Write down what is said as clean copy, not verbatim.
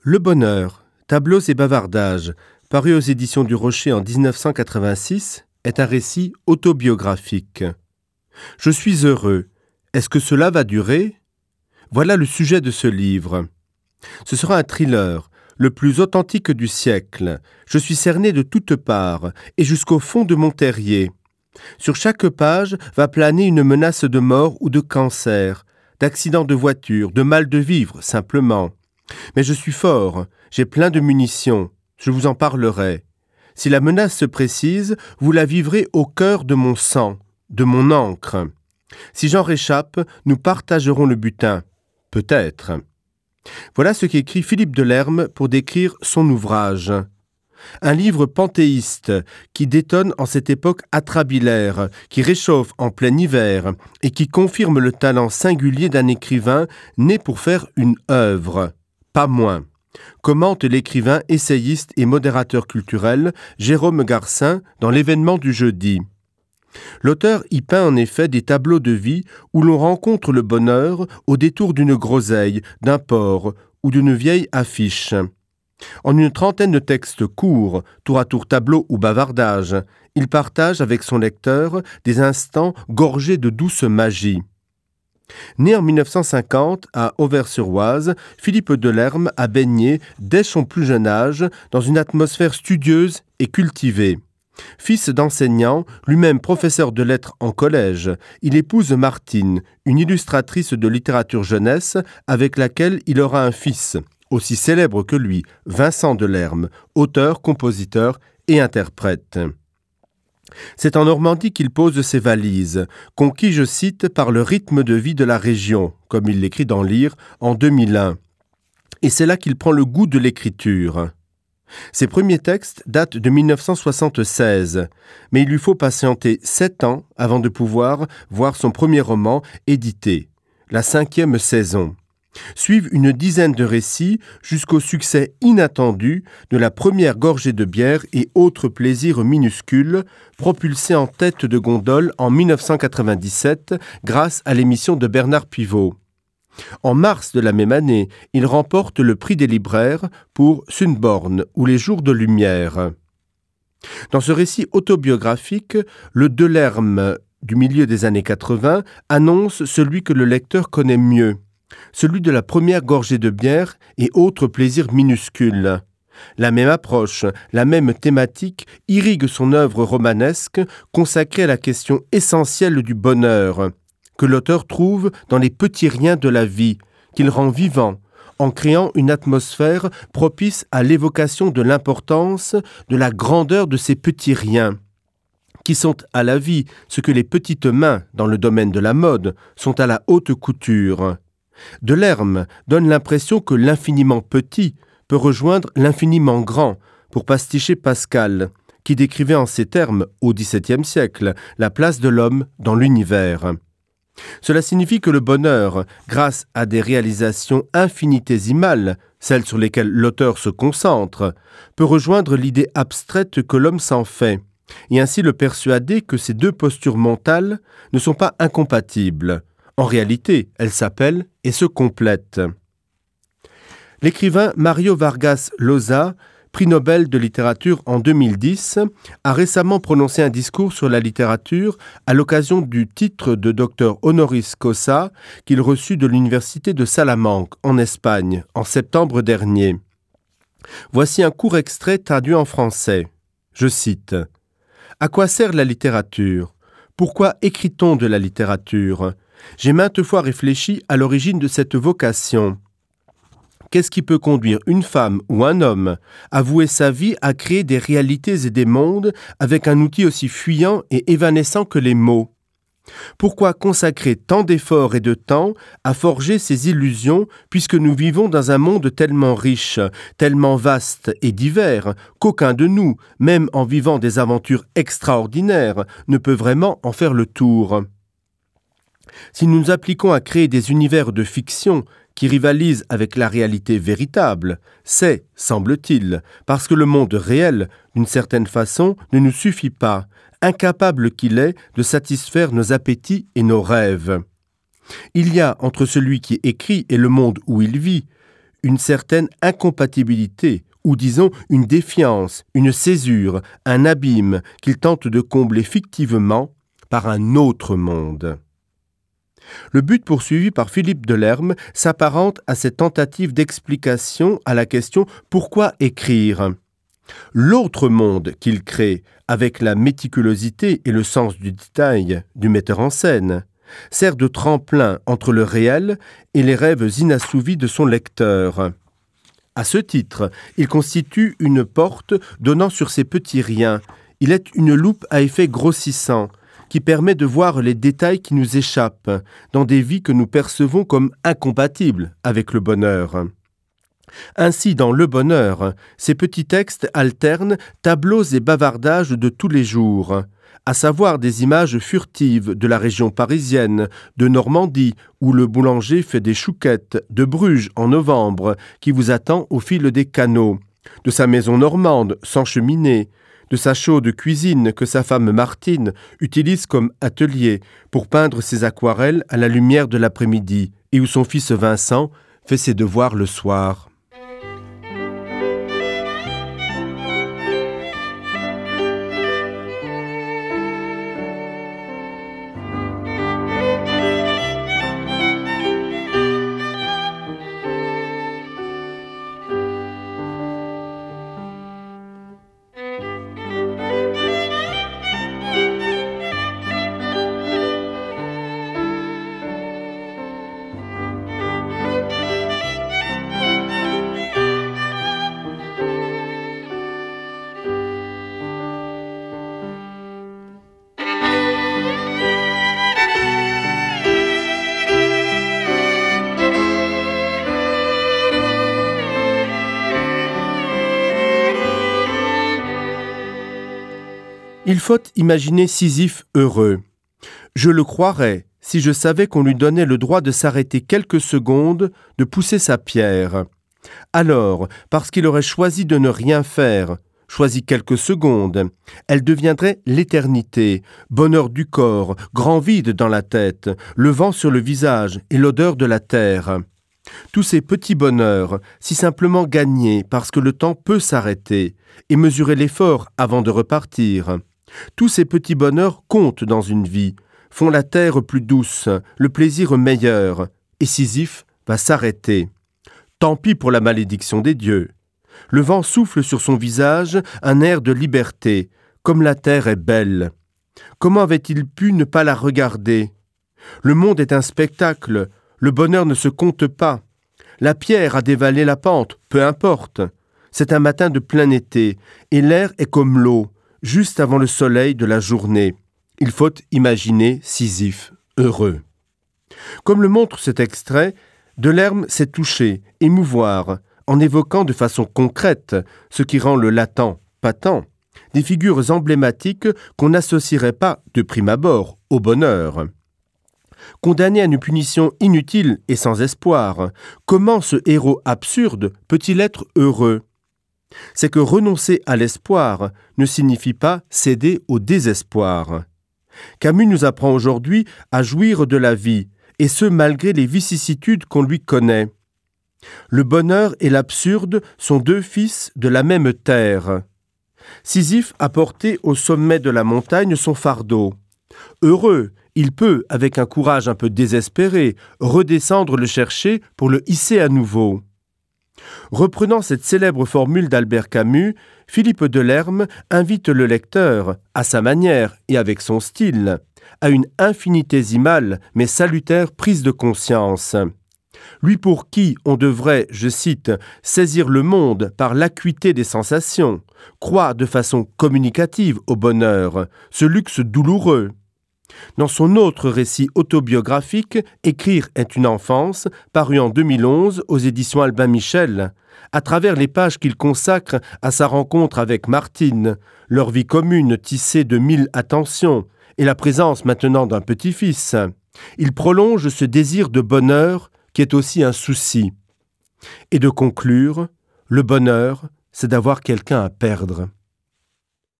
Le bonheur, tableaux et bavardages, paru aux éditions du Rocher en 1986, est un récit autobiographique. Je suis heureux. Est-ce que cela va durer Voilà le sujet de ce livre. Ce sera un thriller, le plus authentique du siècle. Je suis cerné de toutes parts et jusqu'au fond de mon terrier. Sur chaque page va planer une menace de mort ou de cancer, d'accident de voiture, de mal de vivre simplement. Mais je suis fort, j'ai plein de munitions, je vous en parlerai. Si la menace se précise, vous la vivrez au cœur de mon sang, de mon encre. Si j'en réchappe, nous partagerons le butin. Peut-être. Voilà ce qu'écrit Philippe Delerme pour décrire son ouvrage. Un livre panthéiste qui détonne en cette époque atrabilaire, qui réchauffe en plein hiver et qui confirme le talent singulier d'un écrivain né pour faire une œuvre, pas moins. Commente l'écrivain, essayiste et modérateur culturel Jérôme Garcin dans l'événement du jeudi. L'auteur y peint en effet des tableaux de vie où l'on rencontre le bonheur au détour d'une groseille, d'un port ou d'une vieille affiche. En une trentaine de textes courts, tour à tour tableau ou bavardage, il partage avec son lecteur des instants gorgés de douce magie. Né en 1950 à Auvers-sur-Oise, Philippe Delerme a baigné dès son plus jeune âge dans une atmosphère studieuse et cultivée. Fils d'enseignant, lui-même professeur de lettres en collège, il épouse Martine, une illustratrice de littérature jeunesse avec laquelle il aura un fils, aussi célèbre que lui, Vincent Delerme, auteur, compositeur et interprète. C'est en Normandie qu'il pose ses valises, conquis, je cite, par le rythme de vie de la région, comme il l'écrit dans Lire en 2001. Et c'est là qu'il prend le goût de l'écriture. Ses premiers textes datent de 1976, mais il lui faut patienter sept ans avant de pouvoir voir son premier roman édité, la cinquième saison. Suivent une dizaine de récits jusqu'au succès inattendu de la première gorgée de bière et autres plaisirs minuscules, propulsés en tête de gondole en 1997 grâce à l'émission de Bernard Pivot. En mars de la même année, il remporte le prix des libraires pour Sunborn ou les jours de lumière. Dans ce récit autobiographique, le Delerme du milieu des années 80 annonce celui que le lecteur connaît mieux, celui de la première gorgée de bière et autres plaisirs minuscules. La même approche, la même thématique irrigue son œuvre romanesque consacrée à la question essentielle du bonheur, que l'auteur trouve dans les petits riens de la vie, qu'il rend vivant, en créant une atmosphère propice à l'évocation de l'importance, de la grandeur de ces petits riens qui sont à la vie ce que les petites mains dans le domaine de la mode sont à la haute couture. Delerme donne l'impression que l'infiniment petit peut rejoindre l'infiniment grand pour pasticher Pascal, qui décrivait en ces termes, au XVIIe siècle, la place de l'homme dans l'univers. Cela signifie que le bonheur, grâce à des réalisations infinitésimales, celles sur lesquelles l'auteur se concentre, peut rejoindre l'idée abstraite que l'homme s'en fait, et ainsi le persuader que ces deux postures mentales ne sont pas incompatibles. En réalité, elles s'appellent et se complètent. L'écrivain Mario Vargas Llosa, prix Nobel de littérature en 2010, a récemment prononcé un discours sur la littérature à l'occasion du titre de docteur honoris causa qu'il reçut de l'université de Salamanque en Espagne en septembre dernier. Voici un court extrait traduit en français. Je cite: À quoi sert la littérature? Pourquoi écrit-on de la littérature? J'ai maintes fois réfléchi à l'origine de cette vocation. Qu'est-ce qui peut conduire une femme ou un homme à vouer sa vie à créer des réalités et des mondes avec un outil aussi fuyant et évanescent que les mots? Pourquoi consacrer tant d'efforts et de temps à forger ces illusions puisque nous vivons dans un monde tellement riche, tellement vaste et divers qu'aucun de nous, même en vivant des aventures extraordinaires, ne peut vraiment en faire le tour? Si nous nous appliquons à créer des univers de fiction qui rivalisent avec la réalité véritable, c'est, semble-t-il, parce que le monde réel, d'une certaine façon, ne nous suffit pas, incapable qu'il est de satisfaire nos appétits et nos rêves. Il y a entre celui qui écrit et le monde où il vit, une certaine incompatibilité, ou disons une défiance, une césure, un abîme qu'il tente de combler fictivement par un autre monde. Le but poursuivi par Philippe Delerme s'apparente à cette tentative d'explication à la question pourquoi écrire. L'autre monde qu'il crée avec la méticulosité et le sens du détail du metteur en scène sert de tremplin entre le réel et les rêves inassouvis de son lecteur. À ce titre, il constitue une porte donnant sur ces petits riens. Il est une loupe à effet grossissant qui permet de voir les détails qui nous échappent dans des vies que nous percevons comme incompatibles avec le bonheur. Ainsi, dans le bonheur, ces petits textes alternent tableaux et bavardages de tous les jours, à savoir des images furtives de la région parisienne, de Normandie, où le boulanger fait des chouquettes, de Bruges en novembre, qui vous attend au fil des canaux, de sa maison normande sans cheminée, de sa chaude cuisine que sa femme Martine utilise comme atelier pour peindre ses aquarelles à la lumière de l'après-midi et où son fils Vincent fait ses devoirs le soir. Il faut imaginer Sisyphe heureux. Je le croirais si je savais qu'on lui donnait le droit de s'arrêter quelques secondes, de pousser sa pierre. Alors, parce qu'il aurait choisi de ne rien faire, choisi quelques secondes, elle deviendrait l'éternité, bonheur du corps, grand vide dans la tête, le vent sur le visage et l'odeur de la terre. Tous ces petits bonheurs, si simplement gagnés parce que le temps peut s'arrêter et mesurer l'effort avant de repartir. Tous ces petits bonheurs comptent dans une vie, font la terre plus douce, le plaisir meilleur, et Sisyphe va s'arrêter. Tant pis pour la malédiction des dieux. Le vent souffle sur son visage un air de liberté, comme la terre est belle. Comment avait-il pu ne pas la regarder Le monde est un spectacle, le bonheur ne se compte pas. La pierre a dévalé la pente, peu importe. C'est un matin de plein été, et l'air est comme l'eau, juste avant le soleil de la journée. Il faut imaginer Sisyphe heureux. Comme le montre cet extrait, Delerme s'est touché, émouvoir, en évoquant de façon concrète ce qui rend le latent patent, des figures emblématiques qu'on n'associerait pas de prime abord au bonheur. Condamné à une punition inutile et sans espoir, comment ce héros absurde peut-il être heureux C'est que renoncer à l'espoir ne signifie pas céder au désespoir. Camus nous apprend aujourd'hui à jouir de la vie, et ce malgré les vicissitudes qu'on lui connaît. Le bonheur et l'absurde sont deux fils de la même terre. Sisyphe a porté au sommet de la montagne son fardeau. Heureux, il peut, avec un courage un peu désespéré, redescendre le chercher pour le hisser à nouveau. Reprenant cette célèbre formule d'Albert Camus, Philippe Delerme invite le lecteur, à sa manière et avec son style, à une infinitésimale mais salutaire prise de conscience. Lui pour qui on devrait, je cite, saisir le monde par l'acuité des sensations, croit de façon communicative au bonheur, ce luxe douloureux. Dans son autre récit autobiographique, Écrire est une enfance, paru en 2011 aux éditions Albin Michel, à travers les pages qu'il consacre à sa rencontre avec Martine, leur vie commune tissée de mille attentions et la présence maintenant d'un petit-fils, il prolonge ce désir de bonheur qui est aussi un souci. Et de conclure, le bonheur, c'est d'avoir quelqu'un à perdre.